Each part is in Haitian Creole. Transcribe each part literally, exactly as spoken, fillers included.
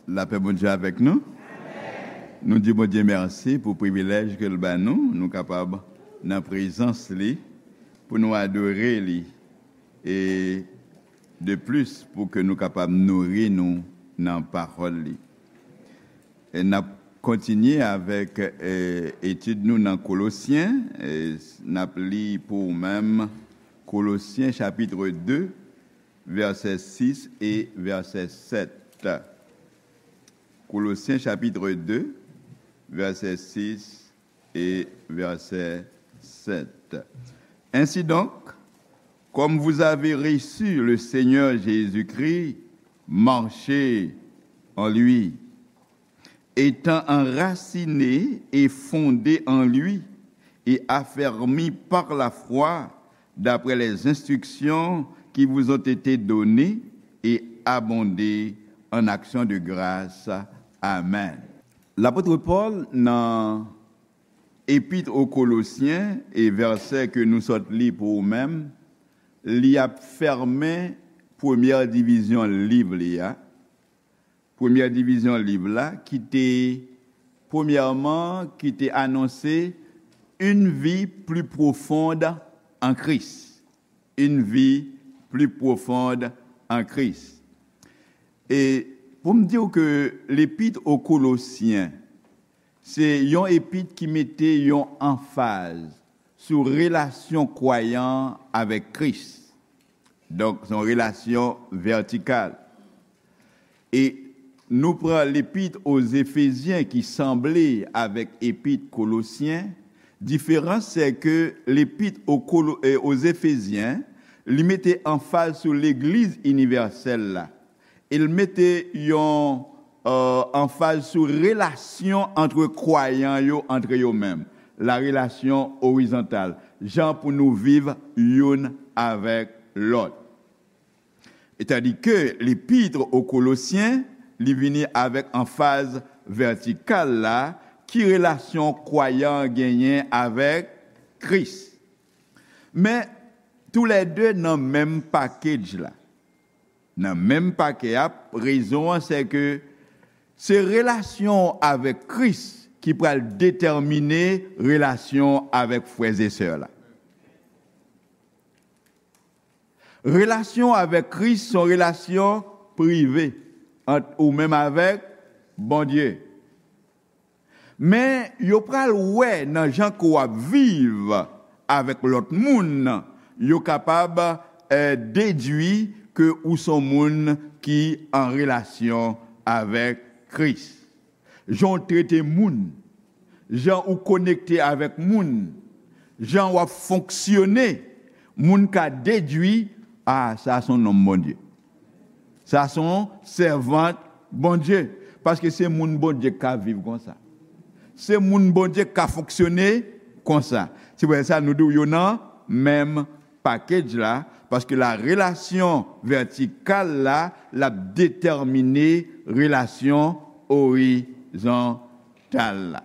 Lapè Bondye avèk nou. Nou di Bondye mèsi pou privilèj ke l ba nou, nou kapab nan prezans li, pou nou adore li, e de plis, pou ke nou kapab nouri nou nan pawòl li. E n ap kontinye avèk, e, etid nou nan Kolosyen. E n ap li pou ou menm Kolosyen chapit de, vèsè sis e vèsè sèt. Kolosyen chapit de, vèsè sis e vèsè sèt. Ainsi donc, comme vous avez reçu le Seigneur Jésus-Christ, marchez en lui, étant enracinés et fondés en lui et affermis par la foi, d'après les instructions qui vous ont été données, et abondez en actions de grâce. Amen. Lapot Pòl nan Epit o Kolosyen, e vèsè ke nou sot li pou ou menm, li ap fèmen premyè divizyon liv li a. Premyè divizyon liv la, ki te, premyèman, ki te anonse une vie plus profonde en Christ. Une vie plus profonde en Christ. E pou m di w ke lepit o Kolosyen, se yon epit ki mete yon anfaz sou relasyon kwayan avèk Kris. Donk, se yon relasyon vètikal. E nou pran lepit o Zefezyen ki sanble avèk epit Kolosyen. Diferans, se ke lepit o Kolo-, e, o Zefezyen, li mete anfaz sou legliz inivèsèl la. E l mete yon, e, anfaz sou relasyon antre kwayan yo, antre yo menm. La relasyon orizontal. Jan pou nou viv youn avèk lòt. Etandike lepit o Kolosyen, li vini avèk anfaz vètikal la, ki relasyon kwayan genyen avèk Kris. Men, toulède nan menm pakej la. Nan menm pakè a, rezon an, se ke se relasyon w avèk Kris ki pral detèmine relasyon w avèk frè e sè la. Relasyon avèk Kris se yon relasyon prive ant ou menm avèk Bondye. Men, yo pral wè nan jan ke w ap viv avèk lòt moun, yo kapab, eh, dedui ke ou se yon moun ki an relasyon avèk Kris. Jan w trete moun, jan ou konekte avèk moun, jan w ap fonksyone, moun ka dedui, a, sa se yon nonm Bondye. Sa se yon sèvant Bondye. Paske se moun Bondye k ka viv konsa. Se moun Bondye k ka fonksyone konsa. Se pou sa nou di w yo nan menm pakej la, paske la relasyon vètikal la, l ap detèmine relasyon orizontal la.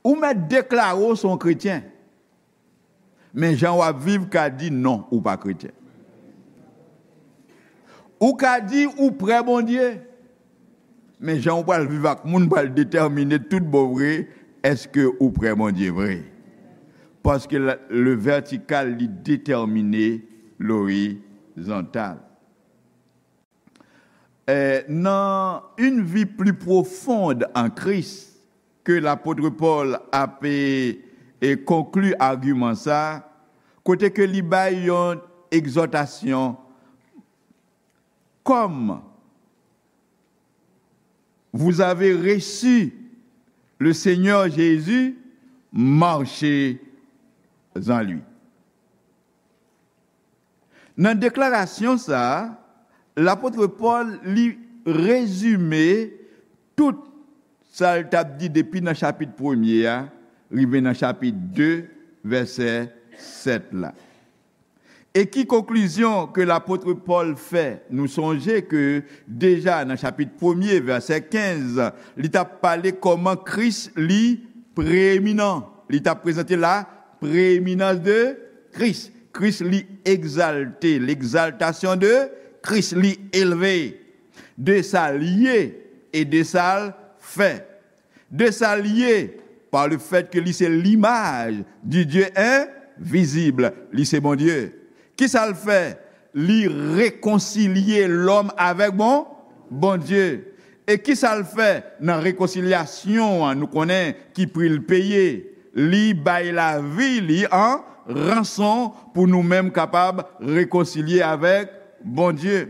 Ou mèt deklare w se yon kretyen, men jan w ap viv ka di non, ou pa kretyen. Ou ka di ou prè Bondye, men jan ou pral viv ak moun pral detèmine tout bon vre èske ou prè Bondye vre. Paske la, le vertikal, li detèmine lorizontal. Eh, nan une vie plus profonde en Christ, ke lapot Pòl ap, e, e konkli agiman sa, kote ke li bay yon egzòtasyon, comme vous avez reçu le Seigneur Jésus, marchez en lui. Nan deklarasyon sa a, lapot Pòl, li rezime tout sa l t ap di depi nan chapit premye a, rive nan chapit de, vèsè sèt la. E ki konklizyon ke lapot Pòl fè? Nou sonje ke deja nan chapit premye, vèsè kenz, li t ap pale kòman Kris li preyeminan. Li t ap prezante la prééminence de Christ. Kris li egzalte, l'exaltation de Christ, li elve. De sa l ye, e de sa l fè. De sa l ye, pa le fèt ke li se limaj di Dye envizib, li se Bondye. Ki sa l fè? Li rekonsilye lòm avèk bon Bondye. E ki sa l fè nan rekonsilyasyon an? Nou konnen ki pri l peye. Li bay lavi li an ranson pou nou menm kapab rekonsilye avèk Bondye.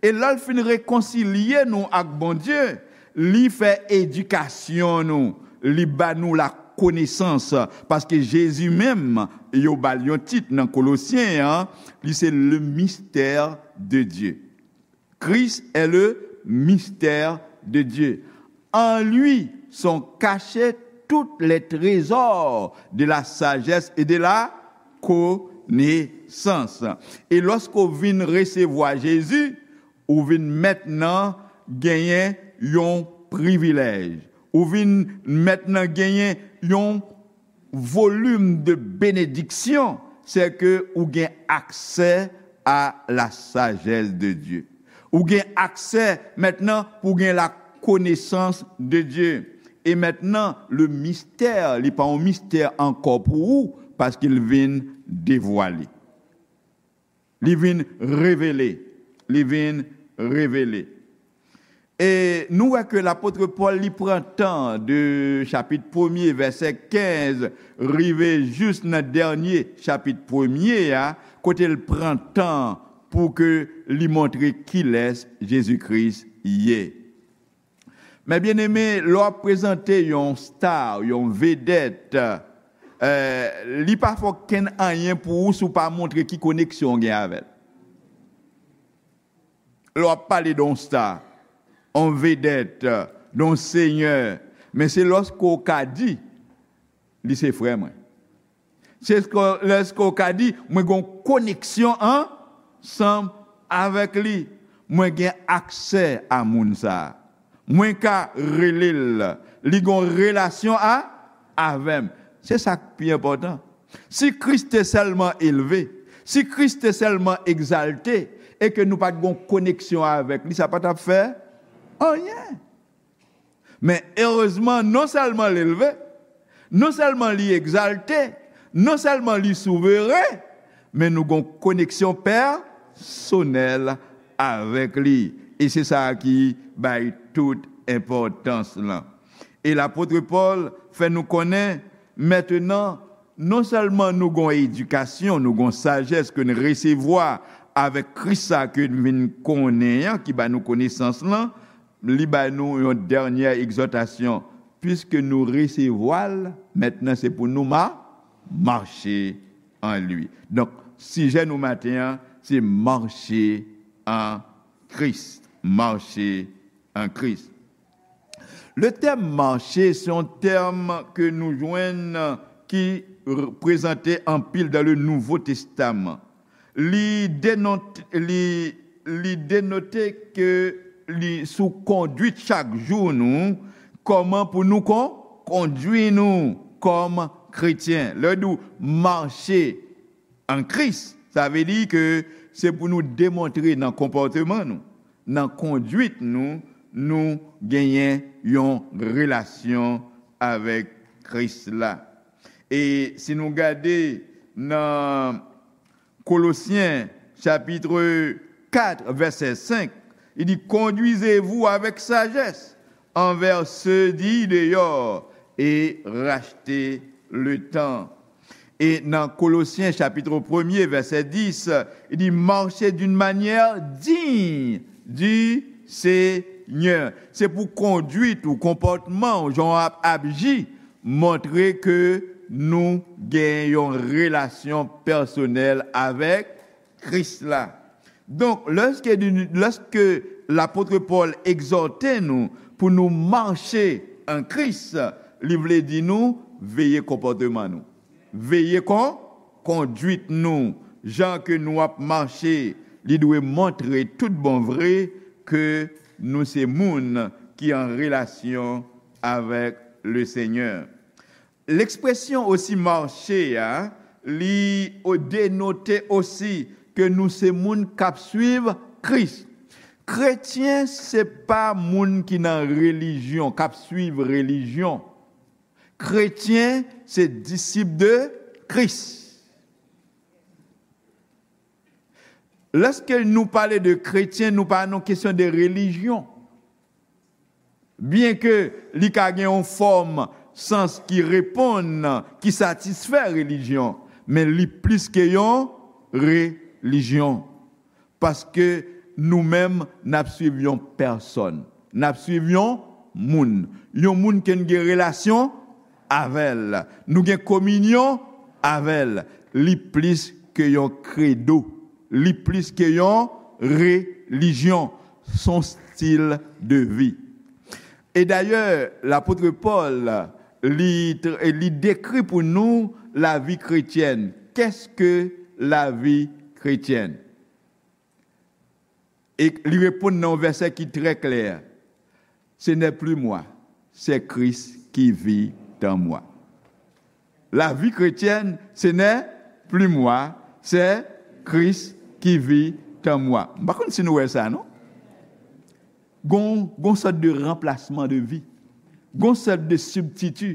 E lè l fin rekonsilye nou ak Bondye, li fè edikasyon nou, li ba nou lakonesans, paske Jezi menm, yo ba l yon tit nan Kolosyen an, li se le mystère de Dieu. Christ est le mystère de Dieu. En lui sont cachés tous les trésors de la sagesse et de la connaissance. E lòske w vin resevwa Jezi, ou vin mentnan genyen yon privilèj. Ou vin mentnan genyen yon volim de benediksyon, se ke ou gen aksè a la sagesse de Dieu. Ou gen aksè mentnan pou gen la connaissance de Dieu. E mentnan, le mystère, li pa yon mistè ankò pou ou, paske l vin devwale. Li vin revele. Li vin revele. E nou wè ke lapot Pòl, li pran tan de chapit premye, vèsè kenz, rive jis nan dènye chapit premye a, kote l pran tan pou ke li montre kilès Jezi Kris ye. Men byeneme, lè w ap prezante yon star, yon vedèt, eh, li pa fè okenn anyen pou ou si w pa montre ki koneksyon w gen avè l. Lè w ap pale de yon star, yon vedèt, de yon senyè, men se lòske w ka di, li se frè mwen. Se lòske w ka di, mwen gen yon koneksyon ansanm avèk li. Mwen gen aksè a moun sa a. Mwen ka rele l. Li gen yon relasyon a, avè m. Se sa k pi enpòtan. Si Kris te sèlman elve, si Kris te sèlman egzalte, e ke nou pa t gen yon koneksyon avèk li, sa pa t ap fè anyen. Men erezman, non sèlman l elve, non sèlman li egzalte, non sèlman li souveren, men nou gen yon koneksyon pèsonèl avèk li. E se sa ki bay tout enpòtans lan. E lapot Pòl fè nou konnen, mentnan, non sèlman nou gen yon edikasyon, nou gen yon sajès ke n resevwa avèk Kris sa ke n vin konnen an, ki ba nou konesans lan, li ba nou yon dènye egzòtasyon. Piske nou resevwa l, mentnan se pou nou ma-, mache an li. Donk, sijè nou maten an, se mache an Kris. Mache an Kris. Le tèm mache, se yon tèm ke nou jwenn ki r-, prezante anpil dans le Nouveau Testament. Li denote, li, li denote ke li sou kondwit chak jou nou, kòman pou nou kon-, kondwi nou kòm kretyen. Lè w di w mache an Kris, sa vle di ke se pou nou demontre nan konpòteman nou, nan kondwit nou, nou genyen yon relasyon avèk Kris la. E si nou gade nan Kolosyen, chapit kat, vèsè senk, li di, conduisez-vous avec sagesse envers ceux dits dehors et rachetez le temps. E nan Kolosyen, chapit premye, vèsè dis, li di, marchez d'une manière digne du Seigneur. Se pou kondwit ou konpòtman ou, jan w ap aji, montre ke nou gen yon relasyon pèsonèl avèk Kris la. Donk, lèske, lèske lapot Pòl egzòte nou pou nou mache an Kris, li vle di nou veye konpòteman nou. Veye kon-, kondwit nou, jan ke nou ap mache, li dwe montre tout bon vre ke nou se moun ki an relasyon avèk Lesenyè. Lekspresyon osi mache a, li o-, denote osi ke nou se moun k ap swiv Kris. Kretyen se pa moun ki nan relijyon, k ap swiv relijyon. Kretyen se disip de Kris. Lèske nou pale de kretyen, nou pa nan kesyon de relijyon. Byenke li ka gen yon fòm sans ki reponn, ki satisfè relijyon, men li plis ke yon relijyon. Paske nou menm, n ap swiv yon pèsòn. N ap swiv yon moun. Yon moun ke n gen relasyon avè l. Nou gen kominyon avè l. Li plis ke yon kredo. Li plis ke yon relijyon. S on stil de vi. E dayè, lapot Pòl, li, tr- li dekri pou nou lavi kretyèn. Qu'est-ce que la vie chrétienne? E li reponn nan yon vèsè ki trè klè. Ce n'est plus moi, c'est Christ qui vit en moi. La vie chrétienne, ce n'est plus moi, c'est Christ qui vit en moi. M pa konn si nou wè sa, non? Gon, gon sòt de ranplasman de vi. Gon sòt de sibstiti.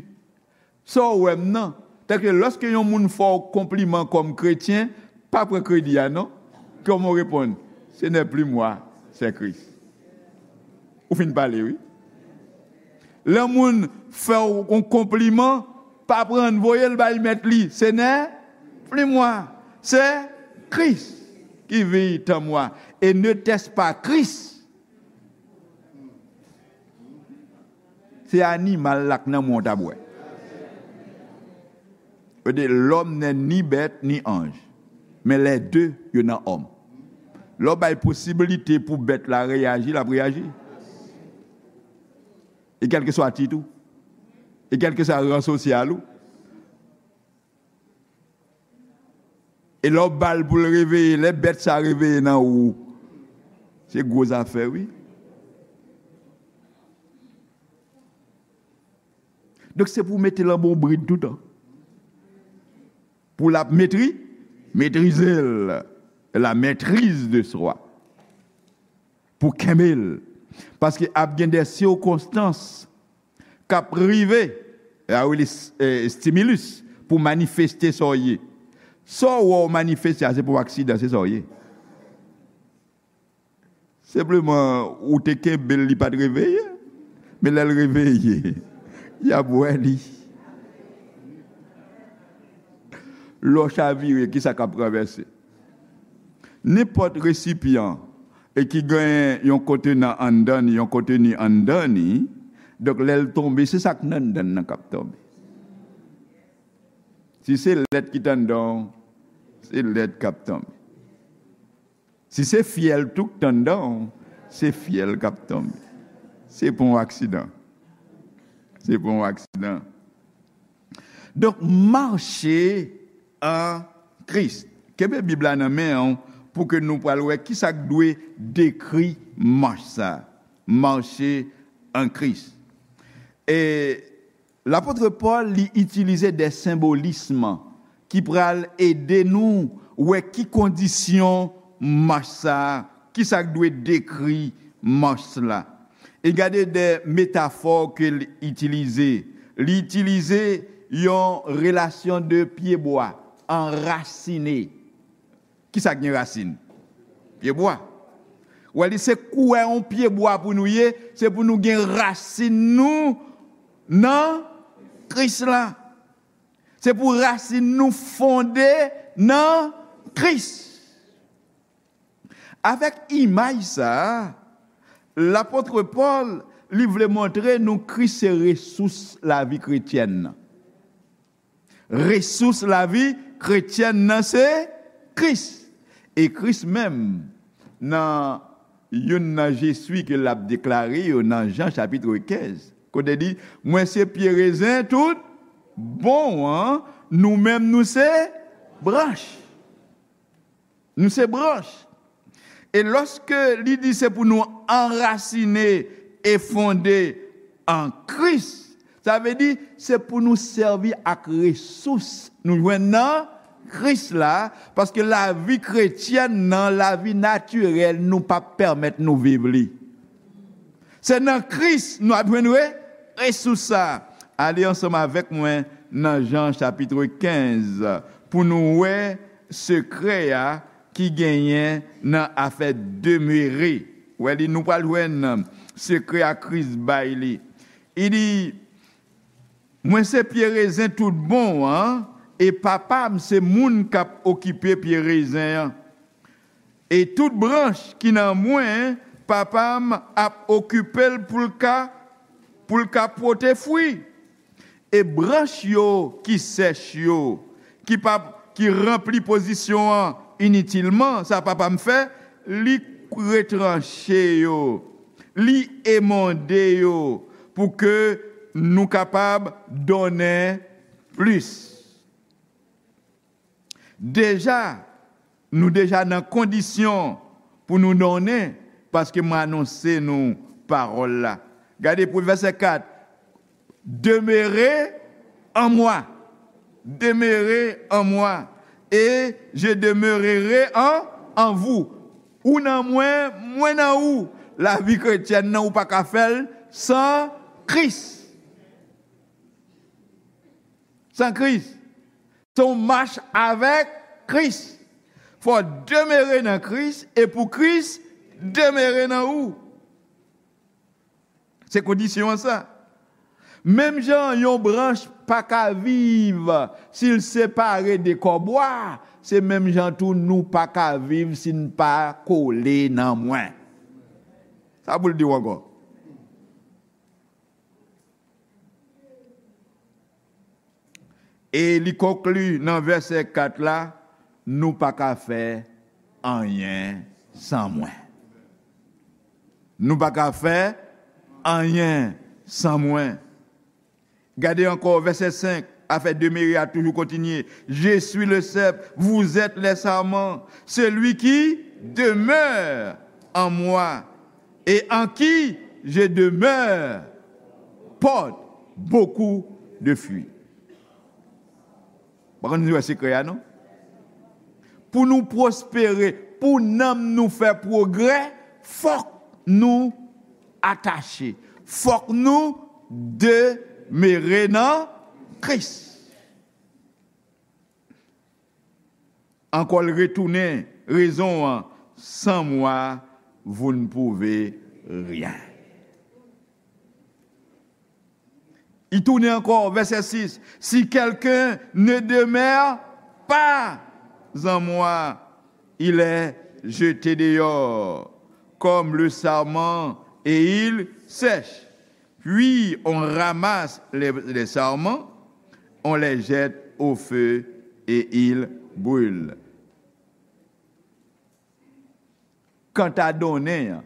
Sa w wè m nan. Tèlke lòske yon moun fè w konpliman kòm kretyen, pa pran kredi a, non. Kòman w reponn? Ce n'est plus moi, c'est Christ. Ou fin pale, wi. Lè moun fè w yon konpliman, pa pran l, voye l bay mèt li. Ce n'est plus moi, c'est Christ qui vit en moi. Et n'était-ce pas Christ? Se animal la k nan mwen w t ap wè. Yo di, l'homme n'est ni bête ni ange, mais les deux, yo nan òm. Lè w bay posibilite pou bèt la reyaji, l ap reyaji. E kèlkeswa tit ou, e kèlkeswa ran sosyal ou, e lè w ba l pou l reveye, lè bèt sa reveye nan ou, se gwo zafè, wi. Donk, se pou w mete l an bon brid toutan. Pou l ap metri, metrize l. La maîtrise de soi. Pou kenbe l. Paske ap gen de sikonstans k ap rive, e a rele s- e, stimulus, pou manifeste sa w ye. Sa w wè w manifeste a, se pa yon aksidan, se sa w ye. Senpleman, ou te kenbe l, li pa t reveye. Men lè l reveye, y ap wè li. Lè w chavire, kisa k ap ranvèse? Nenpòt resipyan e ki gen yon kontenan anndan li, yon konteni anndan li, donk lè l tonbe, se sa k nan anndan l nan k ap tonbe. Si se lèt ki t anndan w, se lèt k ap tonbe. Si se fyèl tou k t anndan w, se fyèl k ap tonbe. Se pa yon aksidan. Se pa yon aksidan. Donk, mache an Kris. Kenbe Bib la nan men w pou ke nou pral wè kisa k dwe dekri mach sa. Mache an Kris. E lapot Pòl, li itilize de senbolism ki pral ede nou wè ki kondisyon mach sa, kisa k dwe dekri mach la. E gade de metafò ke l itilize. Li itilize yon relasyon de pyebwa anrasine. Kisa k gen rasin? Pyebwa. Ou wè li se kouwè yon pyebwa pou nou ye, se pou nou gen rasin nou nan Kris la. Se pou rasin nou fonde nan Kris. Avèk imaj sa a, lapot Pòl, li vle montre nou Kris se resous lavi kretyèn nan. Resous lavi kretyèn nan se Kris. E Kris menm, nan youn nan je suis ke l ap deklare yo nan Jan chapit kenz, kote li di, mwen se pye rezen tout bon an, nou menm nou se branch. Nou se branch. E lòske li di se pou nou anrasine e fonde an Kris, sa vle di se pou nou sèvi ak resous nou jwenn nan Kris la, paske lavi kretyèn nan, lavi natirèl, nou p ap pèmèt nou viv li. Se nan Kris nou ap jwenn re-, resous sa. Ale ansanm avèk mwen nan Jan chapit kenz pou nou wè sekrè a ki genyen nan afè demere. Wè li, nou pral jwenn sekrè a Kris bay li. Li di, mwen se pye rezen tout bon an, e Papa m se moun k ap okipe pye rezen an. E tout branch ki nan mwen, Papa m ap okipe l pou l ka, pou l ka pote fwi. E branch yo ki sèch yo, ki pa, ki ranpli pozisyon an initilman, sa Papa m fè, li retranche yo, li emonde yo, pou ke nou kapab donnen plis. Deja, nou deja nan kondisyon pou nou donnen, paske mwen anonse nou pawòl la. Gade pou vèsè kat, demeurez en moi. Demeurez en moi, et je demeurerai en, en vous. Ou nan mwen, mwen nan ou. Lavi kretyèn nan, ou pa ka fè l san Kris. San Kris. Se yon mach avèk Kris. Fò w demere nan Kris e pou Kris demere nan ou. Se kondisyon an sa. Menm jan yon branch pa ka viv si l separe de kò bwa, se menm jan tou nou pa ka viv si n pa kole nan mwen. Sa pou l di w ankò. E li konkli nan vèsè kat la, nou pa ka fè anyen san mwen. Nou pa ka fè anyen san mwen. Gade ankò vèsè senk, afè demere a toujou kontinye. Je suis le cep, vous êtes les sarments. Celui qui demeure en moi et en qui je demeure porte beaucoup de fruits. Pa konn si w wè sekrè a, non? Pou nou pwospere, pou nanm nou fè pwogrè, fòk nou atache. Fòk nou demere nan Kris. Ankò l retounen rezon an, sans moi, vous ne pouvez rien. Li tounen ankò, vèsè sis, si quelqu'un ne demeure pas en moi, il est jeté dehors comme le sarment et il sèche. Puis on ramasse les, les sarments, on les jette au feu et ils brûlent. Kanta donnen an,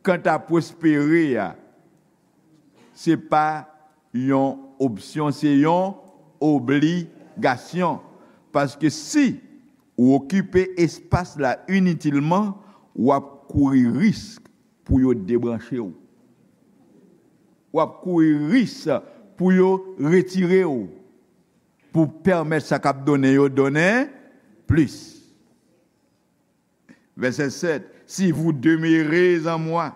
kanta pwospere a, se pa yon opsyon, se yon obligasyon. Paske si ou okipe espas la initilman, w ap kouri risk pou yo debranche w. W ap kouri risk pou yo retire w, pou pèmèt sa k ap donnen yo donnen plis. Vèsè sèt, si vous demeurez en moi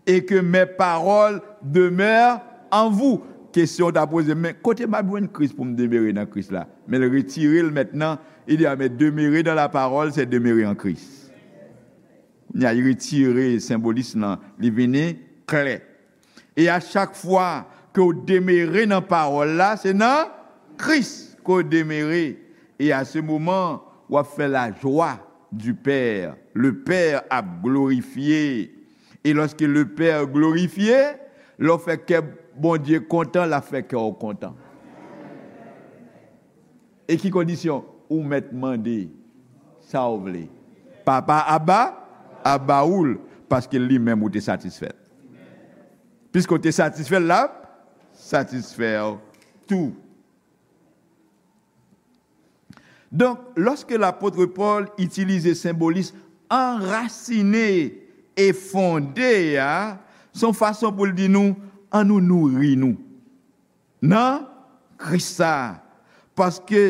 et que mes paroles demeurent en vous. Kesyon w ta poze, men kote m ap jwenn Kris pou m demere nan Kris la? Men l retire l mentnan, li di, a, men demere dans la parole, c'est demeurer en Christ. Kounye a, li retire senbolis lan, li vini klè. E a chak fwa ke w demere nan pawòl la, se nan Kris ke w demere. E a se moman, w ap fè la joie du Père. Le Père ap glorifye. E lòske le Père glorifye, lè w fè kè Bondye kontan, l ap fè kè w kontan. E ki kondisyon? Ou mèt mande sa w vle. Papa ap ba, ap ba ou l, paske li menm ou te satisfè l. Piske w te satisfè l, l ap satisfè w tou. Donk, lòske lapot Pòl itilize senbolis anrasine e fonde a, se yon fason pou l di nou, ann nou nouri nou nan Kris sa. Paske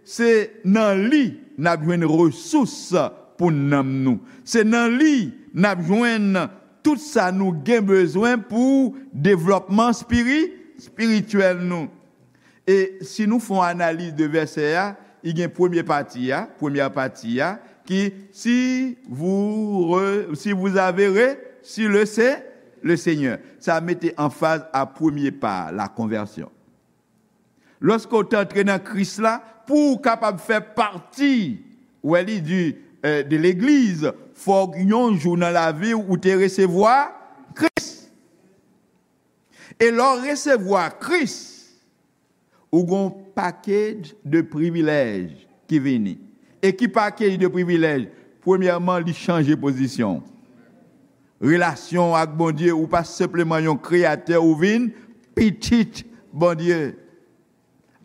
Se nan li n ap jwenn resous pou nanm nou. Se nan li n ap jwenn tout sa nou gen bezwen pou devlòpman spiri-, espirityèl nou. E si nou fè yon analiz de vèsè a, li gen premye pati a, premyè pati a, ki, si vous re-, si vous avez reçu le Se-, le Seigneur. Sa mete anfaz a premye pa, la konvèsyon. Lòske w te antre nan Kris la, pou w kapab fè pati, wè li di, eh, de legliz, fòk yon jou nan lavi w ou te resevwa Kris. E lè w resevwa Kris, ou gon pakèt de privilèj ki vini. E ki pakèt de privilèj? Premyèman, li chanje pozisyon w. Relasyon w ak Bondye, ou pa senpleman yon kreyatè, ou vin pitit Bondye.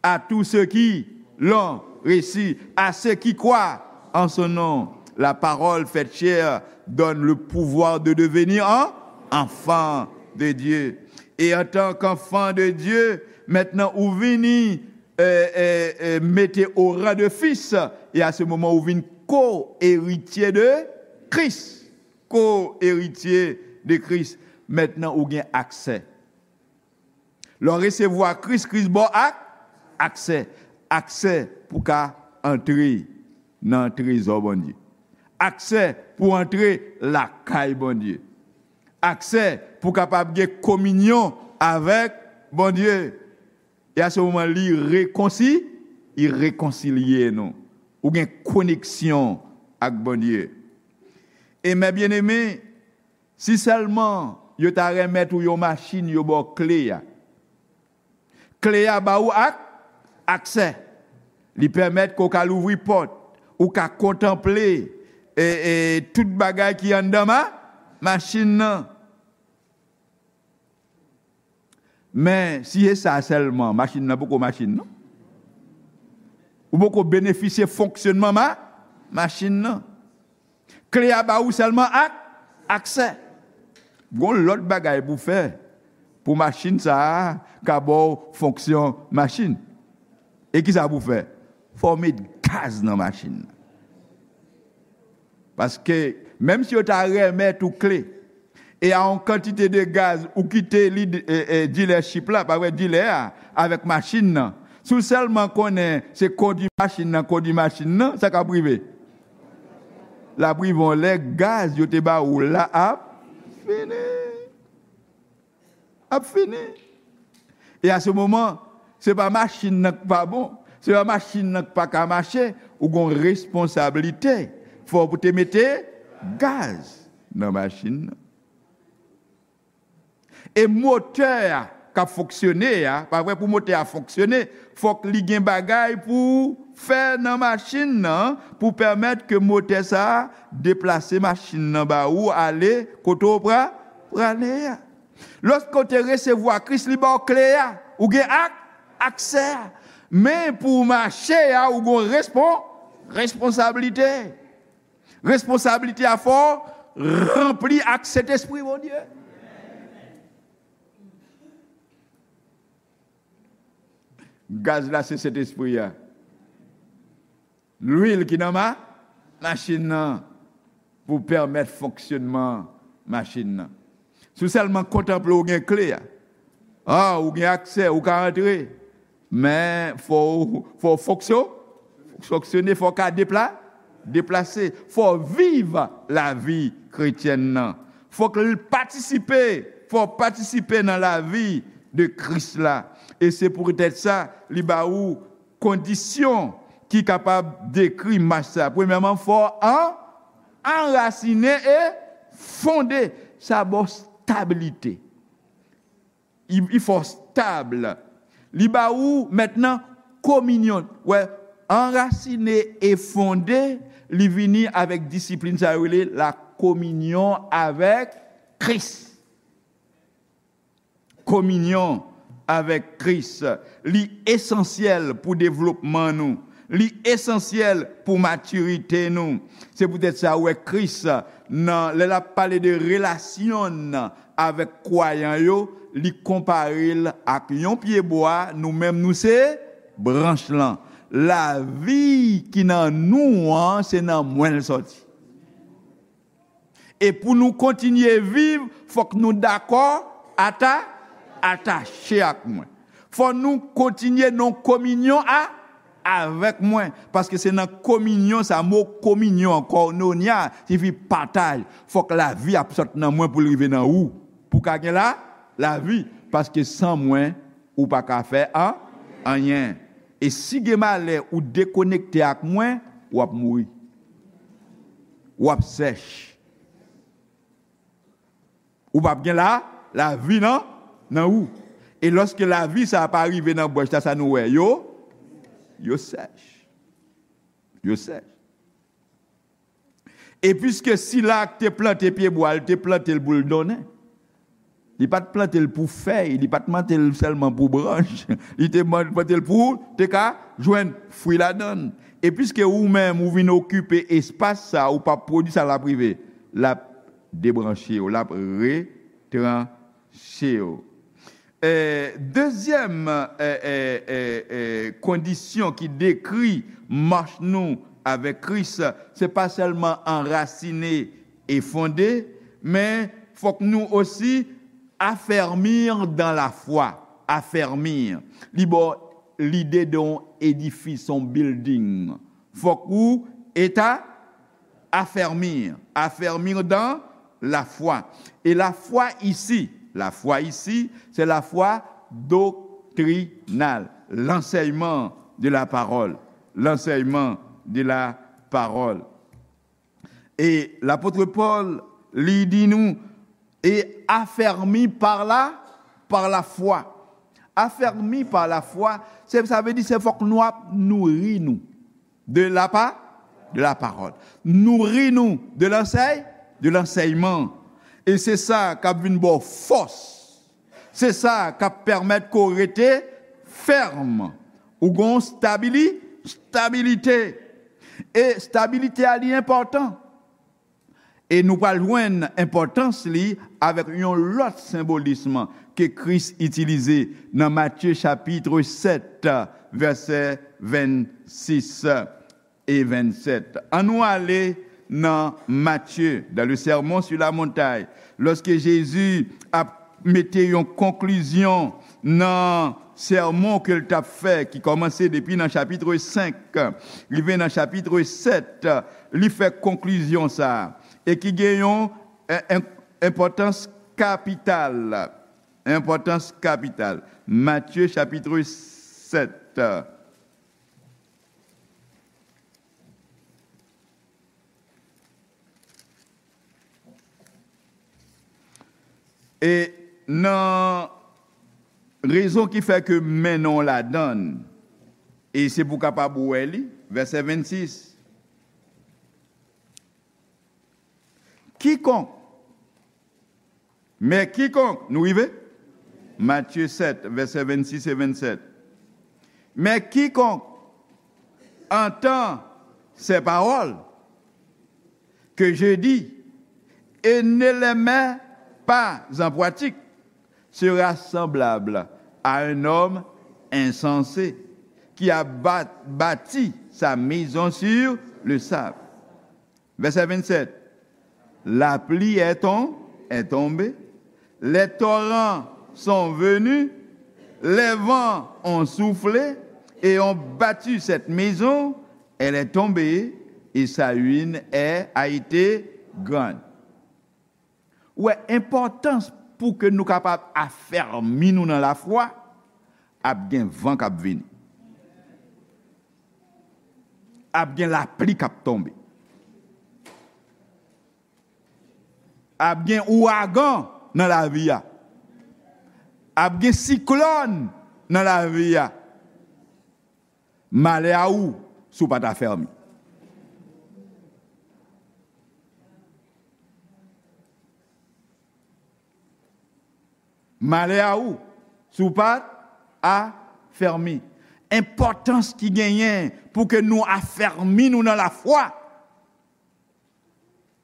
À tous ceux qui l'ont reçu, à ceux qui croient en son nom, la parole faite chair donne le pouvoir de devenir en enfant de Dieu. Et en tant qu'enfant de Dieu, maintenant ou vini, euh, euh, euh, mete au rang de fils, et à ce moment ou vin co-héritier de Christ. Co-héritier de Christ. Maintenant ou gen aksè. Lè w resevwa Kris, Kris ba w ak, aksè. Aksè pou ka antre nan trezò Bondye. Aksè pou antre lakay Bondye. Aksè pou kapab gen kominyon avèk Bondye. E a se moman li rekonsi-, li rekonsilye nou. Ou gen koneksyon ak Bondye. E mè byeneme, si sèlman yo ta remèt ou yon machin, yo ba w kle a. Kle a ba ou ak, aksè. Li pèmèt ke w ka louvri pòt, ou ka kontanple, e, e, tout bagay ki anndan ma-, machin nan. Men, si se sa sèlman, machin nan poko machin, non. Ou poko benefisye fonksyonman ma-, machin nan. Kle a ba ou sèlman ak, aksè. Gon lòt bagay pou fè pou machin sa a ka ba w fonksyon machin. E ki sa pou fè? Fò w met gaz nan machin nan. Paske, menm si yo ta remèt ou kle, e a yon kantite de gaz, ou kite li, e, e, dealership la, pa vre, dilè a, avèk machin nan. Si w sèlman konnen se kondui machin nan, kondui machin nan, sa k ap rive? L ap rive yon lè gaz yo te ba ou la ap fini. Ap fini. E a se moman, se pa machin nan k pa bon, se pa machin nan k pa ka mache, ou gon responsablite. Fò w te mete gaz nan machin nan. E motè a k ap fonksyone a, pa vre, pou motè a fonksyone, fòk li gen bagay pou fè nan machin nan, pou pèmèt ke motè sa a deplase machin nan ba ou ale kote w pra-, prale a. Lòske w te resevwa Kris, li ba w kle a, ou gen ak-, aksè a. Men pou w mache a, ou gon respon-, responsablite. Responsablite a fò w ranpli ak Sentespri Bondye. Gaz la se Sentespri a. Lwil ki nan ma-, machin nan pou pèmèt fonksyonman machin nan. Si w sèlman kontanple w gen kle a, a, ou gen aksè, ou ka antre, men fò w, fò w fonksyo-, fonksyone, fò w ka depla-, deplase, fò w viv lavi kretyèn nan. Fòk l patisipe, fò w patisipe nan lavi de Kris la. E se poutèt sa, li ba ou kondisyon ki kapab dekri mach sa. Premyèman, fò w an-, anrasinen e fonde. Sa ba w stabilite. Li, li fè w stab. Li ba ou mentnan kominyon. Wè, anrasinen e fonde, li vini avèk disiplin sa yo rele la kominyon avèk Kris. Kominyon avèk Kris, li esansyèl pou devlopman nou. Li esansyèl pou matirite nou. Se poutèt sa, ou wè Kris, nan, lè l ap pale de relasyon n avèk kwayan yo, li konpare l ak yon pyebwa, nou menm nou se branch lan. Lavi ki nan nou an, se nan mwen l sòti. E pou nou kontinye viv, fòk nou dakò, ata, atache ak mwen. Fò nou kontinye nan kominyon a, avèk mwen. Paske se nan kominyon sa, mo kominyon, koinonia, siyifi pataj. Fòk lavi ap sot nan mwen pou l rive nan ou. Pou ka gen la, lavi. Paske san mwen, ou pa ka fè an, anyen. E si gen malè ou dekonekte ak mwen, w ap mouri. W ap sèch. Ou p ap gen la, lavi nan, nan ou. E lòske lavi sa a pa rive nan bwèch la, sa nou wè, yo, yo sèch. Yo sèch. E piske sila k te plante pyebwa, li te plante l pou l donnen. Li pa t plante l pou fèy, li pa t plante l sèlman pou branch. Li te man-, plante l pou te ka jwenn fwi ladan l. E piske ou menm, ou vin okipe espas sa, ou p ap pwodui sa, l ap rive. L ap debranche w, l ap retranche w. E, dezyèm, e, e, e, e, kondisyon ki dekri mach nou avèk Kris, se pa sèlman anrasine e fonde, men fòk nou osi affermir dans la foi. Affermir. Li ba w lide de yon edifis, yon building. Fòk ou eta affermir. Affermir dans la foi. Et la foi ici, la foi ici, c'est la foi doctrinale, l'enseignement de la parole, l'enseignement de la parole. E lapot Pòl, li di nou, et affermi par la, par la foi. Affermi par la foi, se, sa vle di se fòk nou ap nouri nou de la pa, de la parole. Nouri nou de lansèy, de lansèyman. E se sa k ap vin ba w fòs. Se sa k ap pèmèt ke w rete fèm. Ou gon stabili-, stabilite. E stabilite a li enpòtan. E nou pral jwenn enpòtans li avèk yon lòt senbolism ke Kris itilize nan Matye chapit sèt, vèsè vennsis e vennsèt. Annou ale nan Matye, dans le Sermon sur la montagne, lòske Jezi ap mete yon konklizyon nan sèmon ke l t ap fè, ki kòmanse depi nan chapit senk, rive nan chapit sèt, li fè konklizyon sa a, e ki gen yon, en, en, enpòtans kapital. Enpòtans kapital. Matye chapit sèt. E nan rezon ki fè ke m mennen w ladan l, e se pou w kapab wè li, vèsè vennsis. Quiconque, mais quiconque, nou rive? Matthieu sept, versets vingt-six et vingt-sept. Mais quiconque entend ces paroles que je dis et ne les met pas en pratique sera semblable à un homme insensé qui a ba-, bâti sa maison sur le sable. Verset vingt-sept. La pluie est, tom-, est tombée, les torrents sont venus, les vents ont soufflé et ont battu cette maison, elle est tombée et sa ruine est, a été grande. Ou wè, enpòtans pou ke nou kapab afèmi nou nan lafwa, ap gen van k ap vini. Ap gen lapli k ap tonbe. Ap gen ouragan nan lavi a. Ap gen siklòn nan lavi a. Malè a ou si w pa t afèmi. Malè a ou si w pa t afèmi. Enpòtans ki genyen pou ke nou afèmi nou nan lafwa.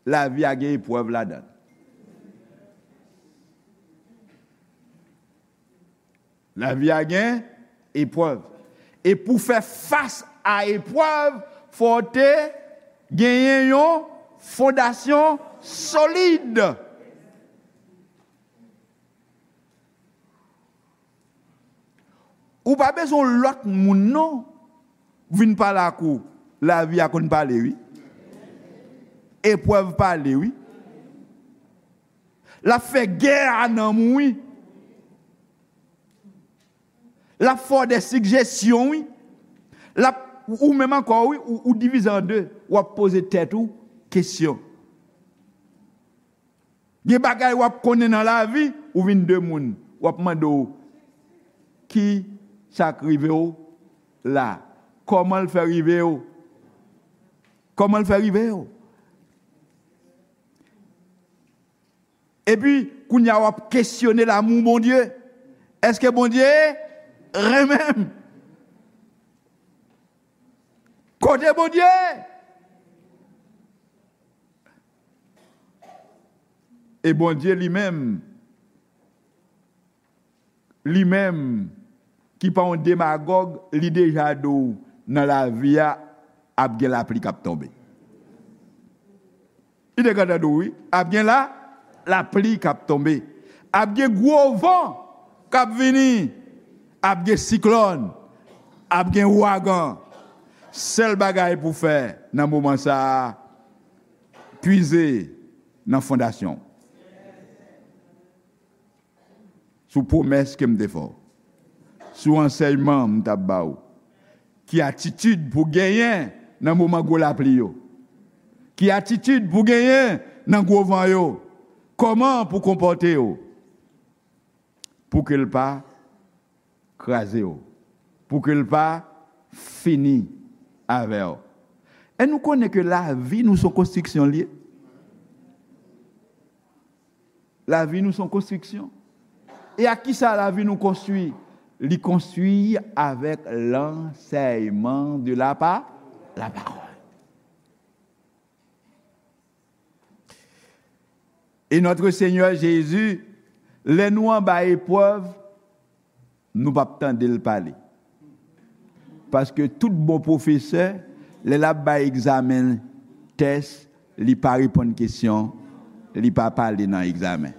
Lavi a gen eprèv ladan l. Lavi a gen eprèv. E pou fè fas a eprèv, fò w te genyen yon fondasyon solid. Ou pa bezwen yon lòt moun non vin pale ak ou. Lavi a konn pale wi. Eprèv pale wi. L ap fè gè a nanm ou wi. L ap fè w de sigjesyon wi. L ap, ou menm ankò wi, ou, ou divize an de. W ap poze tèt ou kesyon. Gen bagay w ap konnen nan lavi, ou vin de moun. W ap mande w, ki sa k rive w la? Kòman l fè rive w? Kòman l fè rive w? Epi, kounye a w ap kesyone lamou Bondye. Èske Bondye renmen m? Kote Bondye? E Bondye li menm, li menm ki pa yon demagòg, li deja di w nan lavi a ap gen lapli k ap tonbe. Li te gentan di w wi, ap gen la, lapli k ap tonbe. Ap gen gwo van k ap vini. Ap gen siklòn. Ap gen ouragan. Sèl bagay pou w fè nan moman sa a, pwize nan fondasyon w. Sou pwomès ke m te fè w, sou ansèyman m t ap ba w. Ki atitid pou genyen nan moman gwo lapli yo? Ki atitid pou genyen nan gwo van yo? Kòman pou konpòte w pou ke l pa kraze w, pou ke l pa fini avè w? E nou konnen ke lavi nou se yon konstriksyon l ye. Lavi nou se yon konstriksyon. E ak ki sa lavi nou konstwi? Li konstwi avèk lansèyman de la pa, la parole. E notre Seigneur Jésus, lè nou anba eprèv, nou p ap tande l pale. Paske tout bon pwofesè, lè l ap bay egzamen, tès, li pa reponn kesyon, li pa pale nan egzamen.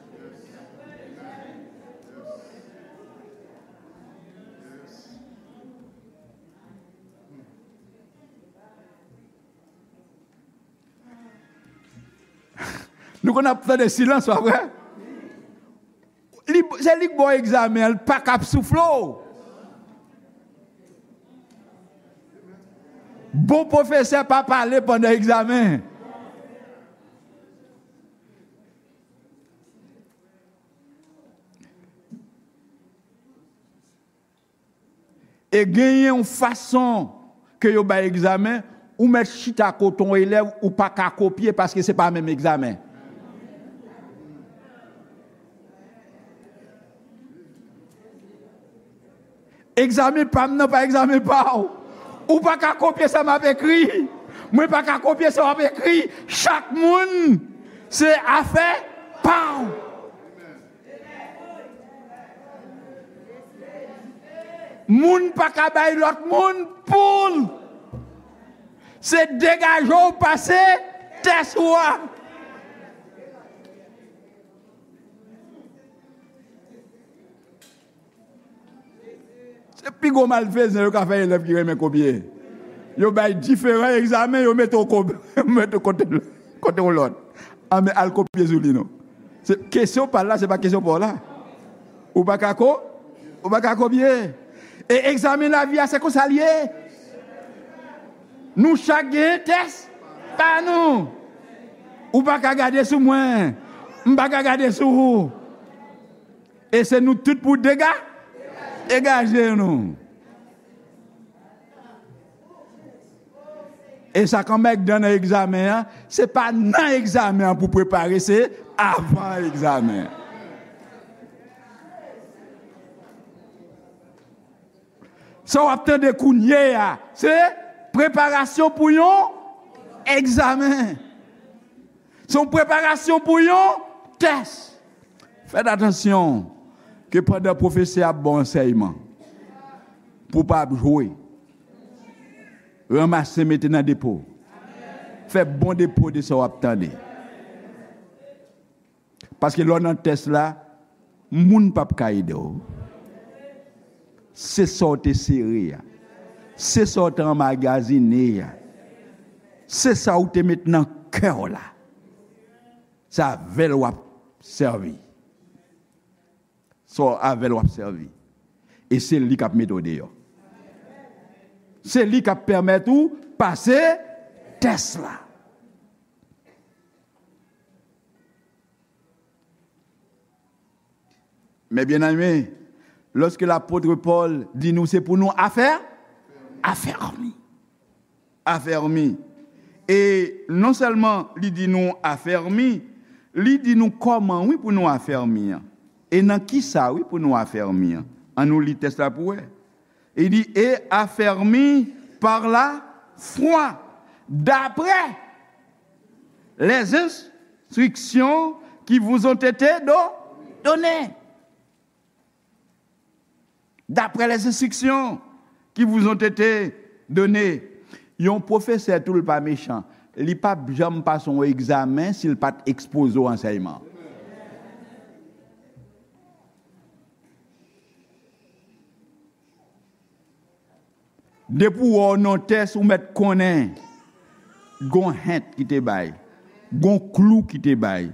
Nou konn ap tande silans, pa vre? Li, se li k ba w egzamen an, li pa ka ap soufle w. Bon pwofesè pa pale pandan egzamen. E genyen yon fason ke yo bay egzamen, ou mèt chita kote yon elèv, ou pa ka kopye paske se pa menm egzamen. Egzamen pa m nan pa egzamen pa w. Ou pa ka kopye sa m ap ekri. Mwen pa ka kopye sa w ap ekri. Chak moun se afè pa w. Moun pa ka bay lòt moun pou l. Se degaje w pase tès ou a. Se pi gwo malfezan yo ka fè elèv ki renmen kopye. Yo bay diferan egzamen, yo mete w ko-, mete w kote, kote yon lòt. Anben, al kopye sou li non. Se, kesyon pa l la, se pa kesyon pa w la. Ou pa ka ko-, ou pa ka kopye. E egzamen lavi a, se konsa l ye. Nou chak gen tès pa nou. Ou pa ka gade sou mwen. M pa ka gade sou ou. E se nou tout pou dega-, degaje nou. E sa k anmègdan nan egzamen an, se pa nan egzamen an pou prepare, se avan egzamen an. Sa w ap tande kounye a, se preparasyon pou yon egzamen. Se yon preparasyon pou yon tès. Fèt atansyon ke pandan pwofesè ap ba w ansèyman, pou w pa ap jwe. Ranmase, mete nan depo. Fè bon depo de sa w ap tande. Paske lè w nan tès la, moun p ap ka ede w. Se sa w te sere a. Se sa w te anmagazine a. Se sa w te met nan kè w la. Se avè l w ap sèvi. Se avè l w ap sèvi. E se li k ap mete w deyò. Se li k ap pèmèt ou pase tès la. Mes bien-aimés, lorsque l'apôtre Paul di nou se pou nou afè, afèmi. Afèmi. E non sèlman li di nou afèmi, li di nou kòman, wi, pou nou afèmi an. E nan ki sa, wi, pou nou afèmi an. An nou li tès la pou wè. Il dit, et affermis par la foi, d'après les instructions qui vous ont été do- données. D'après les instructions qui vous ont été données. Yon pwofesè tou, l pa mechan. Li p ap janm pase yon egzamen si l pa t ekspoze w ansèyman. Depi w wè w nan tès, ou mèt konnen gon hent ki te bay, gon klou ki te bay,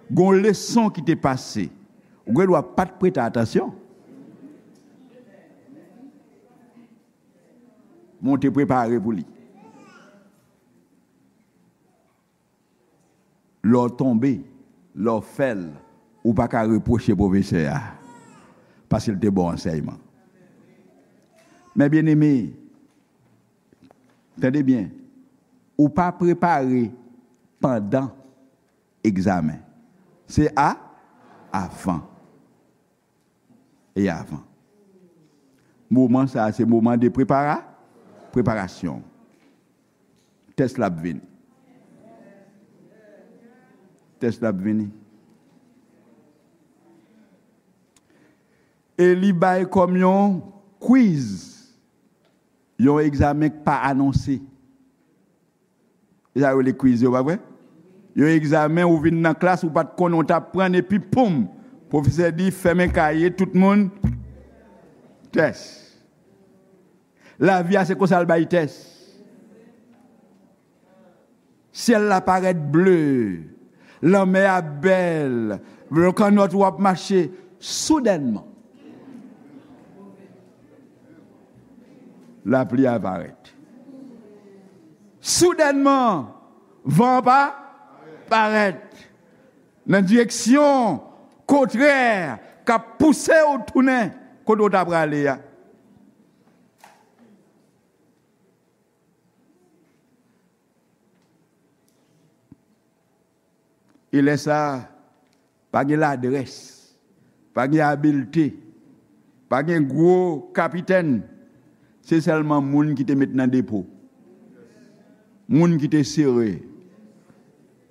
gon leson ki te pase. Ou gen dwa pa t prete atansyon. Men w te prepare pou li. Lè w tonbe, lè w fè l, ou pa ka repwoche pwofesè a, paske l te ba w ansèyman. Men byeneme, tande byen, ou pa prepare pandan egzamen. Se a, avan. E avan. Moman sa a se moman de prepara, preparasyon. Tès la ap vini. Tès la ap vini. E li bay kòm yon quiz, yon egzamen k pa anonse. E sa yo rele quiz yo, pa vre? Yon egzamen, ou vin nan klas, ou pa t konnen, ou t aprann, epi poum! Pwofesè di, fèmen kaye, tout moun, tès. Lavi a, se konsa l bay tès. Syèl la parèt ble, lanmè a bèl, kannòt ou ap mache, soudènman. Lapli a parèt. Soudènman, van an pa parèt nan direksyon kontrè k ap pouse w tounen kote w ta prale a. E lè sa a, pa gen ladrès, pa gen abilte, pa gen gwo kapitèn. Se sèlman moun ki te met nan depo, moun ki te sere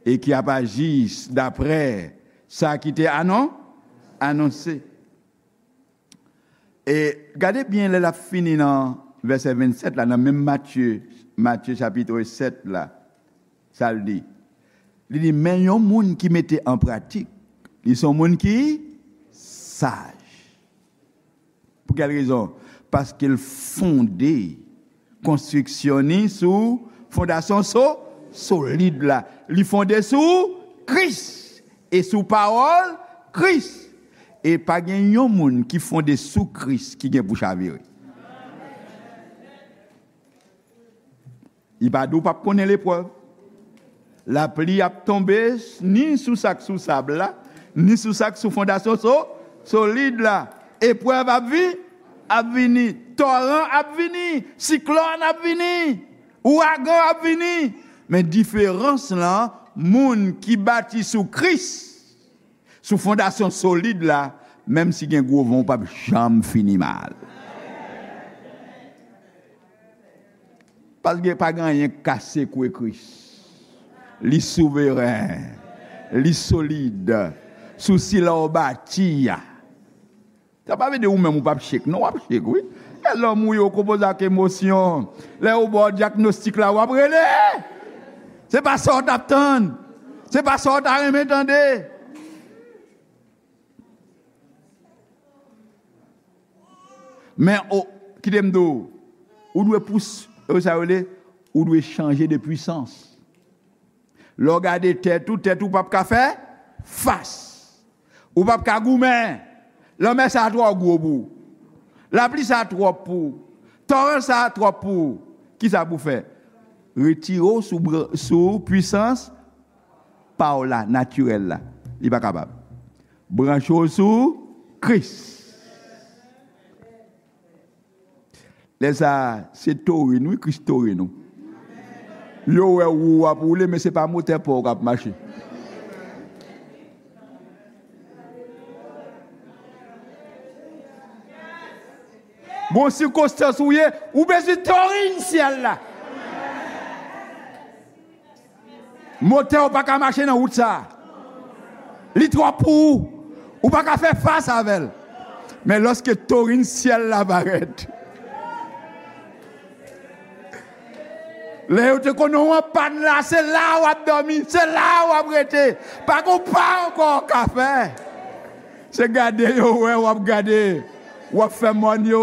e ki ap aji daprè sa ki te anon, anonse. E gade byen lè l ap fini nan vèsè vennsèt la, nan menm Matye, Matye chapit sèt la, sa l di? Li di, men yon moun ki mete an pratik, li se yon moun ki saj. Pou kèl rezon? Paske l fonde konstriksyon ni sou fondasyon so-, solid la. Li fonde sou Kris e sou pawòl Kris. E pa gen yon moun ki fonde sou Kris ki gen pou chavire. Li pa di w p ap konnen leprèv. Lapli ap tonbe ni sou sa k sou sab la, ni sou sa k sou fondasyon so-, solid la. Eprèv ap vi-, ap vini. Toran ap vini. Siklòn ap vini. Ouragan ap vini. Men diferans lan, moun ki bati sou Kris, sou fondasyon solid la, menm si gen gwo van, ou p ap janm fini mal. Paske pa gen anyen k ka sekwe Kris. Li souveren. Li solid. Sou sila w bati a. Sa pa vle di ou menm ou p ap chek. Non, w ap chek, wi. Lè lòm ou ye konpoze ak emosyon. Lè yo ba w dyagnostik la, w ap rele. Se pa sa w t ap tann. Se pa sa w ta renmen tande. Men, o, kite m di w, ou dwe pous, e sa yo rele, ou dwe chanje de pwisans. Lè w gade tèt ou, tèt ou p ap ka fè fas. Ou p ap ka goumen. Lanmè sa a twò gwo pou ou. Lapli sa a twòp pou ou. Toran sa a twòp pou ou. Kisa pou w fè? Retire w sou bran-, sou pwisans pa w la, natirèl la. Li pa kapab. Branche w sou Kris. Lè sa a, se torin, wi, Kris torin ou. Yo wè wou w ap woule, men se pa motè pa w k ap mache. Gon sikonstans ou ye, ou bezwen torin syèl la. Motè w pa ka mache nan wout sa a. Li twòp pou ou. Ou pa ka fè fas avè l. Men lòske torin syèl la parèt, lè yo te konnen w an pàn la, se la w ap dòmi, se la w ap rete. Pa gon pa ankò w ka fè. Se gade yo wè w ap gade. W ap fè mòn yo,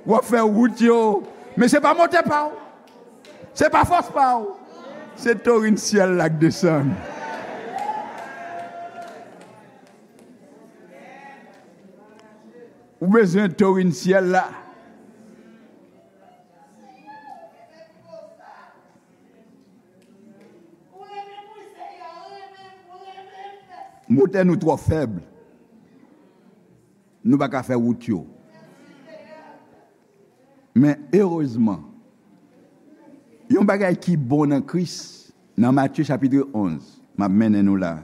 w ap fè wout yo. Men se pa motè pa w. Se pa fòs pa w. Se torin syèl la k desann. Ou bezwen torin syèl la. Motè nou twò fèb. Nou pa ka fè wout yo. Men erezman, yon bagay ki bon nan Kris, nan Matye chapit onz, m ap mennen nou la.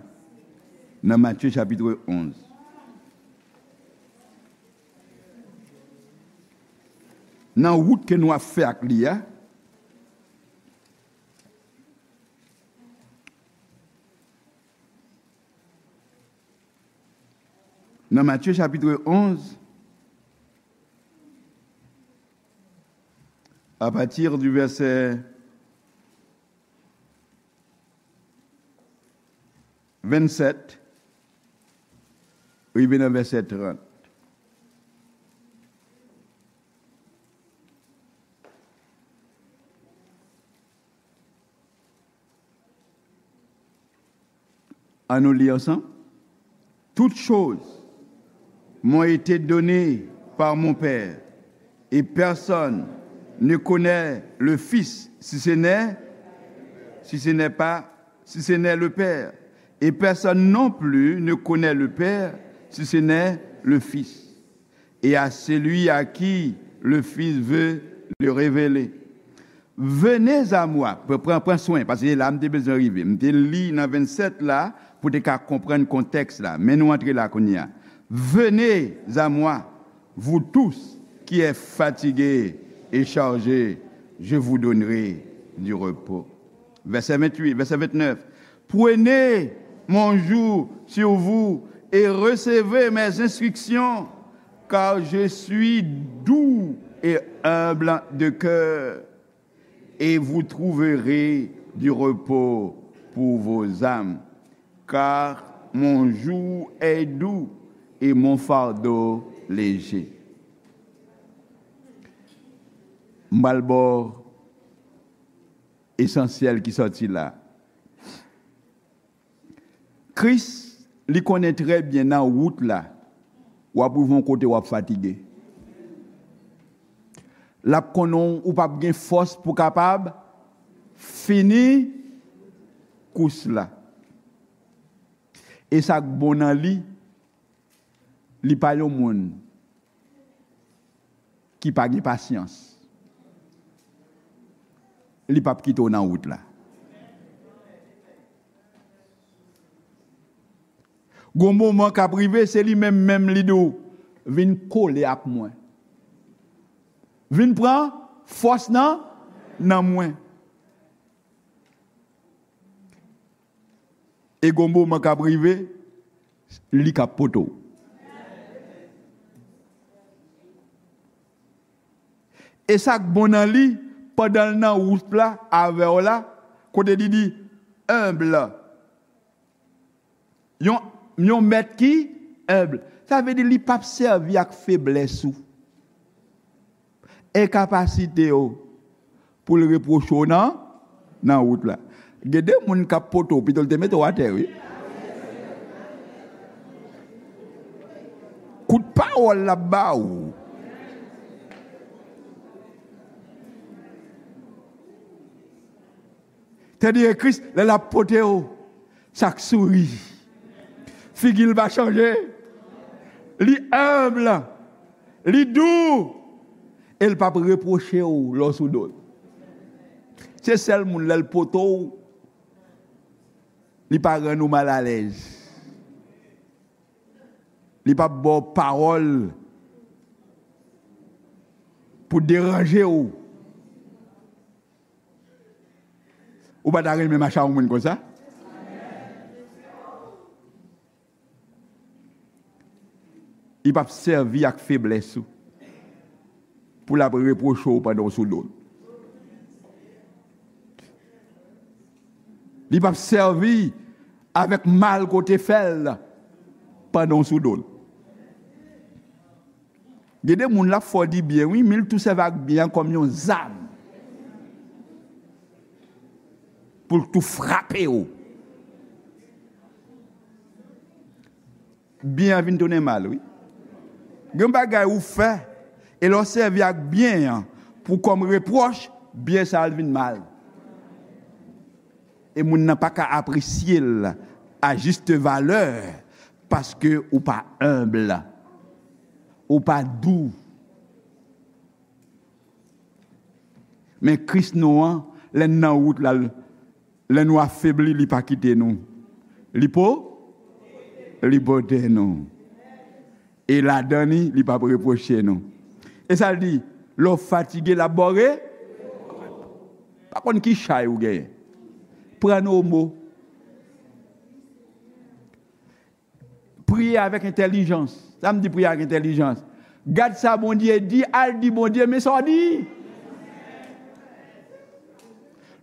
Nan Matye chapit onz. Nan wout ke nou ap fè ak li a, nan Matye chapit onz, à partir du verset vingt-sept, rive nan vèsè trant. Ann nou li ansanm. Toutes choses m'ont été données par mon Père, et personne ne connaît le Fils si ce n'est, si ce n'est pas, si ce n'est le Père. Et personne non plus ne connaît le Père si ce n'est le Fils, et à celui à qui le Fils veut le révéler. Venez à moi, pran, pran swen, paske la m te bezwen rive. M te li nan vennsèt la pou te ka konprann kontèks la. Men nou antre la kounye a. Venez à moi, vous tous qui êtes fatigués et chargés, je vous donnerai du repos. Vèsè venntuit, vèsè vennèf. Prenez mon joug sur vous et recevez mes instructions, car je suis doux et humble de cœur, et vous trouverez du repos pour vos âmes, car mon joug est doux et mon fardeau léger. M pral ba w esansyèl ki sòti la. Kris, li konnen trè byen nan wout la, w ap rive yon kote w ap fatige. L ap konnen w p ap gen fòs pou kapab fini kous la. E sa k bon nan li, li pa yon moun ki pa gen pasyans. Li p ap kite w nan wout la. Gon moman k ap rive, se li menm menm li di w, "Vin kole ak mwen. Vin pran fòs nan, nan mwen." E gon moman k ap rive, li k ap pote w. E sa k bon nan li, pandan l nan wout la avè w la, kote li di, enb. Yon, yon mèt ki enb. Sa vle di li p ap sèvi ak feblès ou, enkapasite w, pou l repwoche w nan, nan wout la. Gen de moun k ap pote w, pito l te mete w atè, wi. Kout pawòl l ap ba ou. Tandis Kris, lè l ap pote w, sa k souri. Figi l pa chanje. Li enb. Li dou. E l p ap repwoche w lè w sou do l. Se sèl moun lè l pote w, li pa rann ou malalèz. Li p ap ba w pawòl pou deranje w. Ou pa ta renmen mache ak yon moun konsa? Li p ap sèvi ak feblès ou pou l ap repwoche w pandan w sou do l. Li p ap sèvi avèk mal ke w te fè l pandan w sou do l. Gen de moun l ap fè w di byen, wi, men l tou sèvi ak byen an kòm yon zam pou l tou frape w. Byen an vin tounen mal, wi. Gen bagay ou fè, e lè w sèvi ak byen an pou kòm repwòch, byen sa a vin mal. E moun nan pa ka apresye l a juste valeur, paske ou pa enb, ou pa dou. Men Kris nou an, lè n nan wout la, lè nou afebli, li pa kite nou. Li po, li pote nou. E ladan li, li p ap repwoche nou. E sa l di, lè w fatige, l ap ba w re-, pa konn ki chay ou genyen. Pran nou o mo. Priye avèk entèlijans. Sa m di priye avèk entèlijans. Gad sa Bondye di, al di Bondye, men sa w di.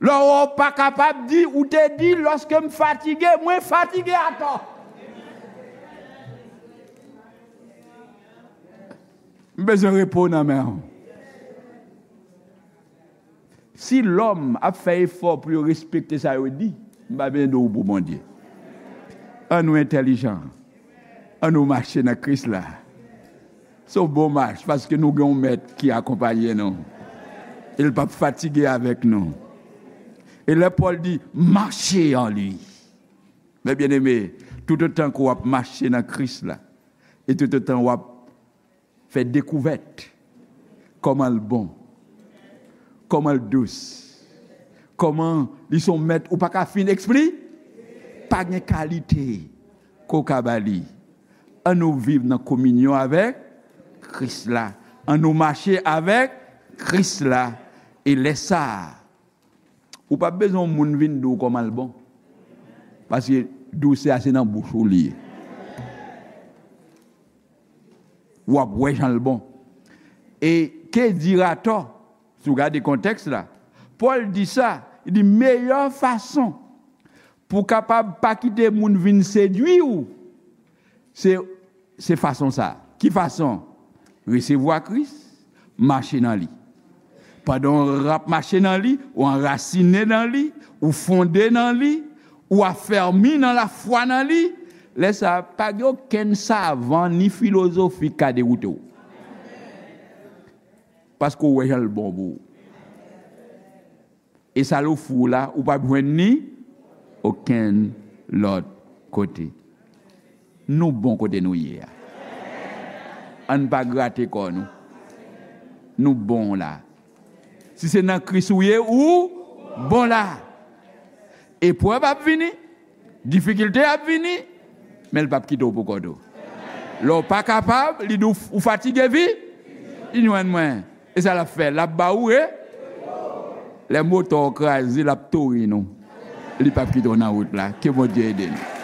Lè w pa kapab di, ou te di, lòske m fatige, mwen fatige atò. M bezwen repo nan men w. Si lòm ap fè efò pou yo respekte sa yo di, m pa bezwen di w pou Bondye. An nou entèlijan. An nou mache nan Kris la. Se yon bon mach, paske nou gen yon mèt ki akonpaye nou. E l p ap fatige avèk nou. E lè Pòl di, mache an li. Men byeneme, toutotan ke w ap mache nan Kris la, e toutotan w ap fè dekouvèt kòman l bon, kòman l dous, kòman li se yon mèt ou pa ka fin ekspli-, pa gen kalite ke w ka ba li. An nou viv nan kominyon avèk Kris la. An nou mache avèk Kris la. E lè sa a, ou p ap bezwen yon moun vin di w kòman l bon. Paske dousè a se nan bouch ou li ye. W ap wè jan l bon. E que dira-t-on, si w gade kontèks la, Pòl di sa, li di meyè fason pou w kapab pa kite moun vin sedui w, se, se fason sa a. Ki fason? Resevwa Kris, mache nan li. Pandan w ap mache nan li, ou anrasine nan li, ou fonde nan li, ou afèmi nan lafwa nan li, lè sa a, pa gen okenn savan ni filozofi k ka dewoute w. Paske w wè jan l bon pou ou. E sa l ofri w la, ou p ap jwenn li okenn lòt kote. Nou bon kote nou ye a. Ann pa grate kò nou. Nou bon la. Si se nan Kris ou ye, ou bon la. Eprèv ap vini, difikilte ap vini, men l p ap kite w pou kont ou. Lè w pa kapab, li di w, ou fatige, vi-, vin jwenn mwen. E sa l ap fè? L ap ba ou re-, lè motò w kraze, l ap tounen nou. Li p ap kite w nan wout la. Ke Bondye ede nou.